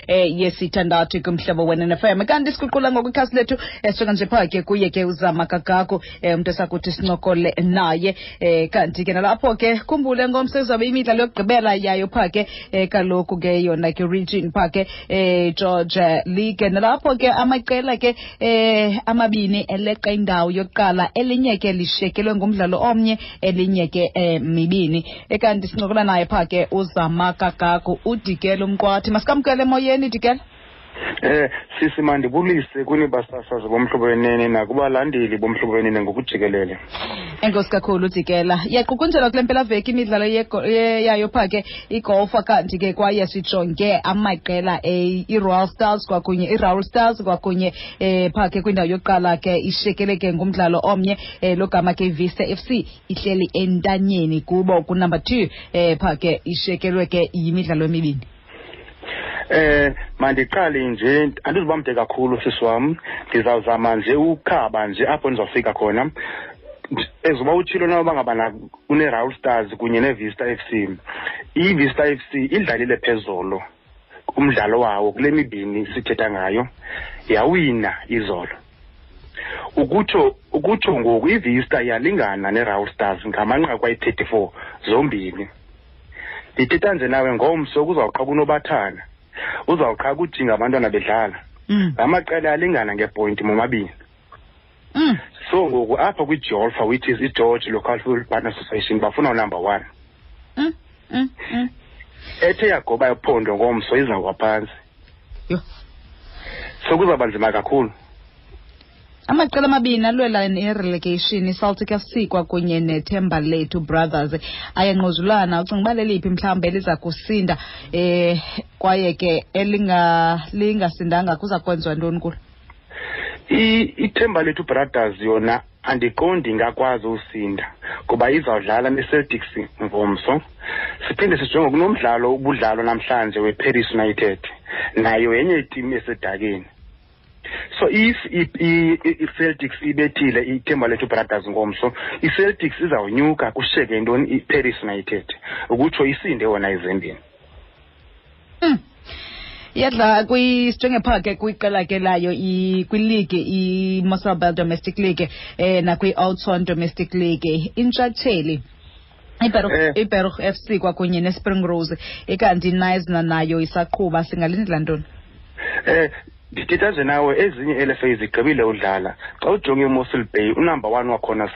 Yesithandathu kuMhlobo Wenene FM. Kanti siguqula ngokwikhasi lethu, suka nje phaa ke kuye ke uZama Kagako, umntu esakuthi sincokole naye. Kanti ke nalapho ke khumbule ngomso izawube imidlalo yokugqibela yayo phaa ke, kaloku ke yona ke region phaa ke, George League. Nalapho ke amaqela ke amabini eleqa indawo yokuqala, elinye ke lishekelwe ngumdlalo omnye, elinye ke mibini. Ekanti sincokola naye phaa ke uZama Kagaku, uDikela uMqwathi. Masikamkele emoyeni, Dikela. Sisi, mandibulise kuni basasazi boMhlobo Wenene nakubalandeli boMhlobo Wenene ngokujikelele. Enkosi kakhulu, Dikela. Iyaqukunjelwa kule mpelaveki imidlalo yayo phaa ke igolfa. Kanti ke kwaye sijonge amaqela, i-Royal Stars kwakunye i-Raul Stars kwakunye phaa ke kwindawo yokuqala ke ishekele ke ngumdlalo omnye, logama ke iVista FC ihleli entanyeni kubo kunumber 2, phaa ke ishekelwe ke yimidlalo emibini. Mandiqale nje, andizuba mde kakhulu, sisi wam. Ndizawuzama nje ukhaba nje apho ndizawufika khona. Ezuba utshilo na uba ngabana une-Raul Stars kunye neVista FC. IVista FC idlalile phezolo umdlalo wawo kule mibini sithetha ngayo, yawina izolo. Ukutsho ngoku iVista iyalingana neRaul Stars ngamanqaku ayi-34 zombini. Ndithetha nje nawe, ngomso kuzawuqha kunobathana, uzawuqha kujinga abantwana bedlala. Ngamaqela alingana ngepointi momabini. So ngoku apha kwiJolfa, which is iGeorge Local Football Partner Association, bafuna unumber 1. Ethe yagoba iphondo ngomso izawuwa phantsi. Yho. So kuzawuba nzima kakhulu. Amaqela amabini alwela i-relegation, iCeltic FC kwakunye neThemba Lethu Brothers, ayanquzulana. Ucinga uba leliphi mhlawumbi eliza kusinda, kwaye ke elinga lingasindanga kuza kwenziwa ntoni kulo? IThemba Lethu Brothers yona andiqondi ingakwazi usinda kuba izawudlala neCeltics ngomso. Siphinde sijonge kunomdlalo ubudlalo namhlanje weParis United, nayo yenye itimu esedakeni. So if i-Celtics ibethile iThemba Lethu Brothers ngomso, i-Celtics izawunyuka kushiyeke ntoni? I-Paris United, ukutsho isinde yona ezembeni. Iyadlala sijonge phaa ke kwiqela ke layo kwiligi iMossel Bay Domestic League, nakwi-Oudtshoorn Domestic League. Intshatsheli iBaruch FC kwakunye neSpring Rose, ikanti iNaisna nayo isaqhuba. Singalindela ntoni? Ndithetha nje nawe, ezinye LFA zigqibile udlala. Xa ujonge iMossel Bay, unumber 1 wakhona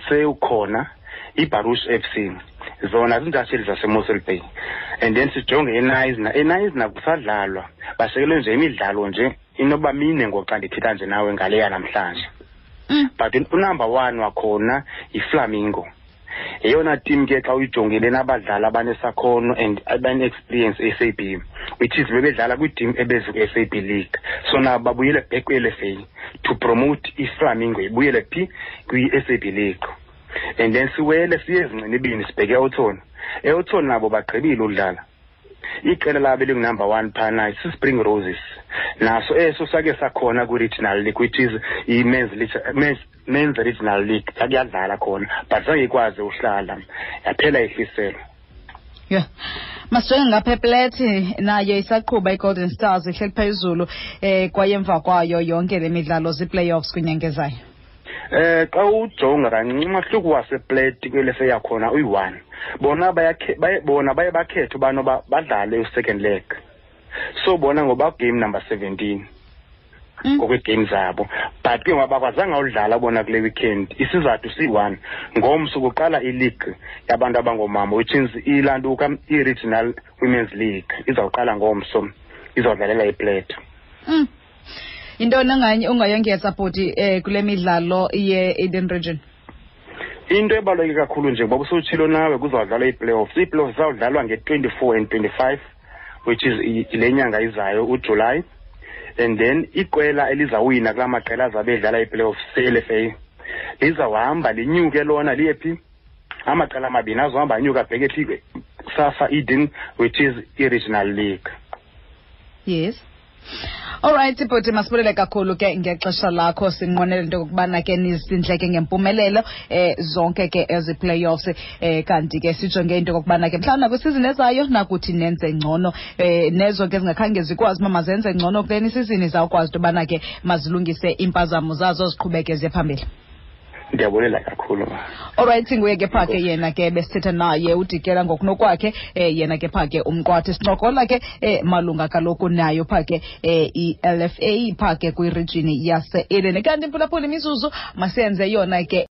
sewukhona, iBaruch FC, zona ziintshatsheli zaseMossel Bay. And then sijonge eNaisna, eNaisna kusadlalwa, bashekelwe nje imidlalo nje inoba mine ngoxa ndithetha nje nawe ngaleya namhlanje. But unumber 1 wakhona yiFlamingo, yeyona team ke xa uyijongile nabadlali abanesakhono and abane-experience e-SAB, which is bebedlala kwiiteam ebeziku-SAB League. So nabo babuyele back kwi-LFA to promote iFlamingo ibuyele phi? Kwi-SAB League. And then siwele siye ezincinibini, sibheke eOudtshoorn. EOudtshoorn nabo bagqibile udlala. Iqela labo elingunumber 1 phana siSpring Roses, naso eso sake sakhona kwi-regional league, which is i-men's men's regional league, yakuyadlala khona but zange ikwazi uhlala, yaphela ihliselo. Yeah. Masijonge ngapha eplethi, nayo isaqhuba iGolden Stars, ihleli phezulu, kwaye emva kwayo yonke le midlalo zii-playoffs kwinyanga ezayo. Xa ujonga kancinci umahluko wasePlate kwelese yakhona uyi-1. Bona bona baye bakhethe ubana badlale u-second leg, so bona ngoba game number 17 ngokwee-game zabo, but ke ngoba bakwazanga udlala bona kule weekend, isizathu siyi-1, ngomso kuqala ileague yabantu abangoomama, which is ilantuka i-Regional Women's League, izawuqala ngomso, izawudlalela iPlate. Yintoni ungayongeza, bhuti, kule midlalo ye-Eden Region? Into ebaluleke kakhulu nje, ngoba usutshilo nawe, kuzawudlalwa ii-playoffs. Ii-playoffs zizawudlalwa nge-24 and 25, which is le nyanga izayo, uJuly. And then iqela elizawina kulaa maqela azabe edlala ii-playoffs se-LFA lizawuhamba linyuke lona liye phi? Amaqela amabini azohamba anyuka abheke phi? SAFA Eden, which is i-regional league. Yes. Alright bhuti, masibulele kakhulu ke ngexesha lakho. Sinqwenela into yokubana ke nizindleke ngempumelelo zonke ke ezi playoffs, kanti ke sijonge into yokubana ke mhlawumbi nakwisizini ezayo nakuthi nenze ngcono, nezo ke zingakhange zikwazi uba mazenze ngcono kuleni isizini zawukwazi into yobana ke mazilungise iimpazamo zazo, ziqhubeke ziye phambili. Ndiyabulela kakhulu, ma. Alright, nguye ke pha ke yena ke besithetha naye uDikela ngokunokwakhe, yena ke pha ke umqwathi, sincokola ke malunga kaloku nayo pha ke i-LFA pha ke kwirijini yase-Eden. Kanti mphulaphula, imizuzu masiyenze yona ke.